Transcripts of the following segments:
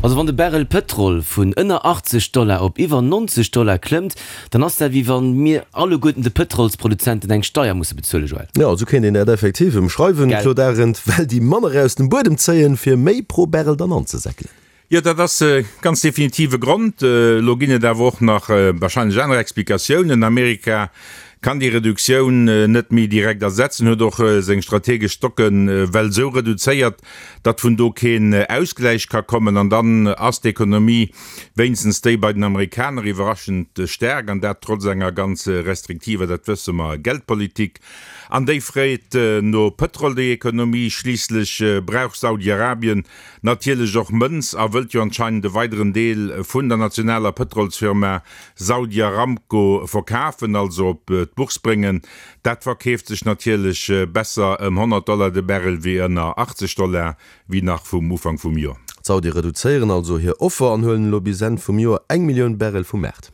Also wann de Barrel Pëtrol vun ënner 80 Dollar op iwwer 90 Dollar klëmmt, dann ass dat wéi wann mir alleguerten de Pëtrolsproduzenten eng Steier musse bezuelen, Joël. Jo, esou kéint een dat effektiv ëmschreiwen, Gell? Claude Arend, well déi manner aus dem Buedem zéien, fir méi pro Barrel dann anzesäckelen. Jo, dat ass ganz definitiv e Grond. Elo ginn et awer och nach wahrscheinlech aner Explikatiounen. Amerika kann déi Reduktioun net méi direkt ersetzen, huet och seng strategesch Stocken well esou reduzéiert, datt vun do keen Ausgläich ka kommen. An dann ass d'Ekonomie, wéinstens déi bei den Amerikaner, iwwerraschend staark, an dat trotz enger ganz restriktiver, dat wësse mer, Geldpolitik. An déi freet no Pëtrol, déi Ekonomie. Schliisslech brauch Saudi-Arabien natierlech och Mënz a wëllt jo anscheinend e weideren Deel vun der nationaler Pëtrolsfirma Saudi Aramco verkafen, also op d'Bourse bréngen. Dat verkeeft sech natierlech besser ëm 100 Dollar de Barrel wéi ënner 80 Dollar, wéi nach vum Ufank vum Joer. D'Saudie reduzéieren also hir Offer an huelen elo bis Enn vum Joer eng Millioun Barrel vum Maart.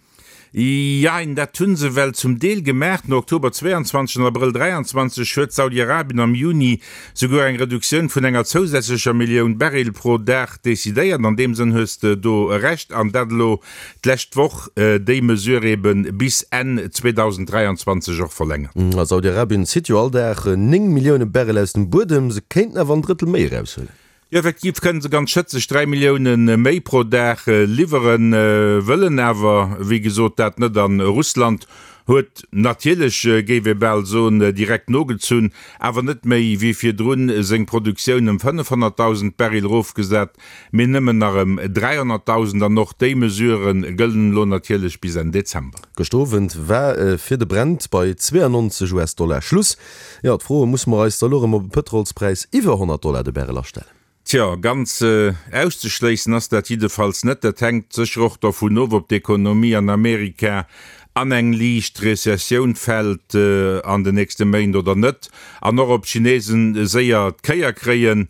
Jein, dat hu se well zum Deel gemaach. No Oktober 22 an Abrëll 23 huet Saudi-Arabien am Juni souguer eng Reduktioun vun enger zousätzlecher Millioun Barrel pro Dag decidéiert. An deem Sënn hues de do Recht. An dat elo d'lescht Woch déi Mesure ebe bis Enn 2023 och verlängert. A Saudi-Arabien zitt jo all Dag 9 Millioune Barrel aus dem Buedem. Se kéinten awer en Drëttel méi eraushuelen. Jo, effektiv kënnen se ganz schëtzeg 3 Millioune méi pro Dag liwweren, wëllen awer wéi gesot dat net. An Russland huet natierlech, géif ee bal soen, direkt nogezunn, awer net méi wéi virdrun seng Produktioun ëm 500.000 Baril erofgesat, mee nëmmen nach ëm 300.000. An och déi Mesure gëllen elo natierlech bis Enn Dezember. Gëschter Owend war fir de Brent bei 92 US-Dollar Schluss. Jo, d'Fro, Musse mer eis da lo erëm op e Pëtrolspräis iwwer 100 Dollar de Barrel astellen? Tjo, ganz auszeschléissen ass dat jiddefalls net. Dat hänkt sécher och dervun of, ob d'Ekonomie an Amerika an eng liicht Rezessioun fält an den nächste Méint oder net, an och ob d'Chinesen séier d'Kéier kréien.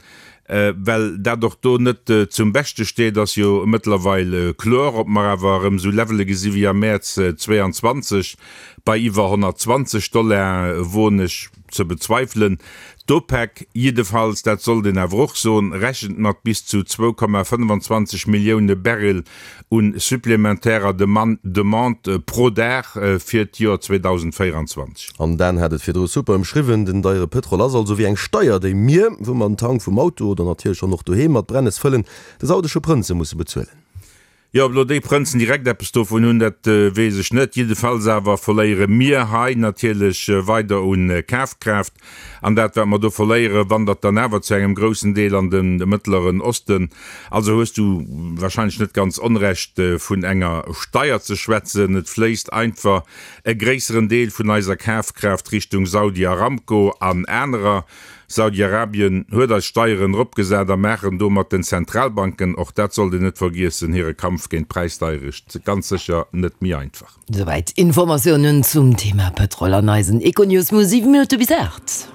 Well dat och do net zum Beschte steet, ass jo mëttlerweil kloer. Ob mer awer erëm esou Levele gesi wéi am Mäerz 22 bei iwwer 120 Dollar, woen ech ze bezweifelen. D'OPEC jiddefalls, dat sollt een awer och soen, rechent mat bis zu 2,25 Millioune Barrel un supplementärer Demande pro Dag fir d'Joer 2024. An Dan hat et virdru super ëmschriwwen, den deiere Pëtrol ass also wéi eng Steier, déi mir, wou mer den Tank vum Auto oder natierlech och nach doheem mat Brennes fëllen, de saudesche Prënze musse bezuelen. Jo, ob elo déi Prënzen direkt eppes dovun hunn, dat weess ech net. Jiddefalls awer verléiere mir hei natierlech weider un Kafkraaft. An dat, wat mer do verléieren, wandert dann awer zu engem groussen Deel an de Mëttleren Osten. Also hues du wahrscheinlech net ganz Onrecht, vun enger Steier ze schwätzen. Et fléisst einfach e gréisseren Deel vun eiser Kafkraaft Richtung Saudi Aramco an anerer. Saudi-Arabien huet eis Steieren eropgesat a maachen domat den Zentralbanken, och dat sollt een net vergiessen, hire Kampf géint d'Präisdeierecht ganz sécher net méi einfach. Souwäit Informatiounen zum Thema Pëtrol an eisen Econews mu 7 Minutte bis 8.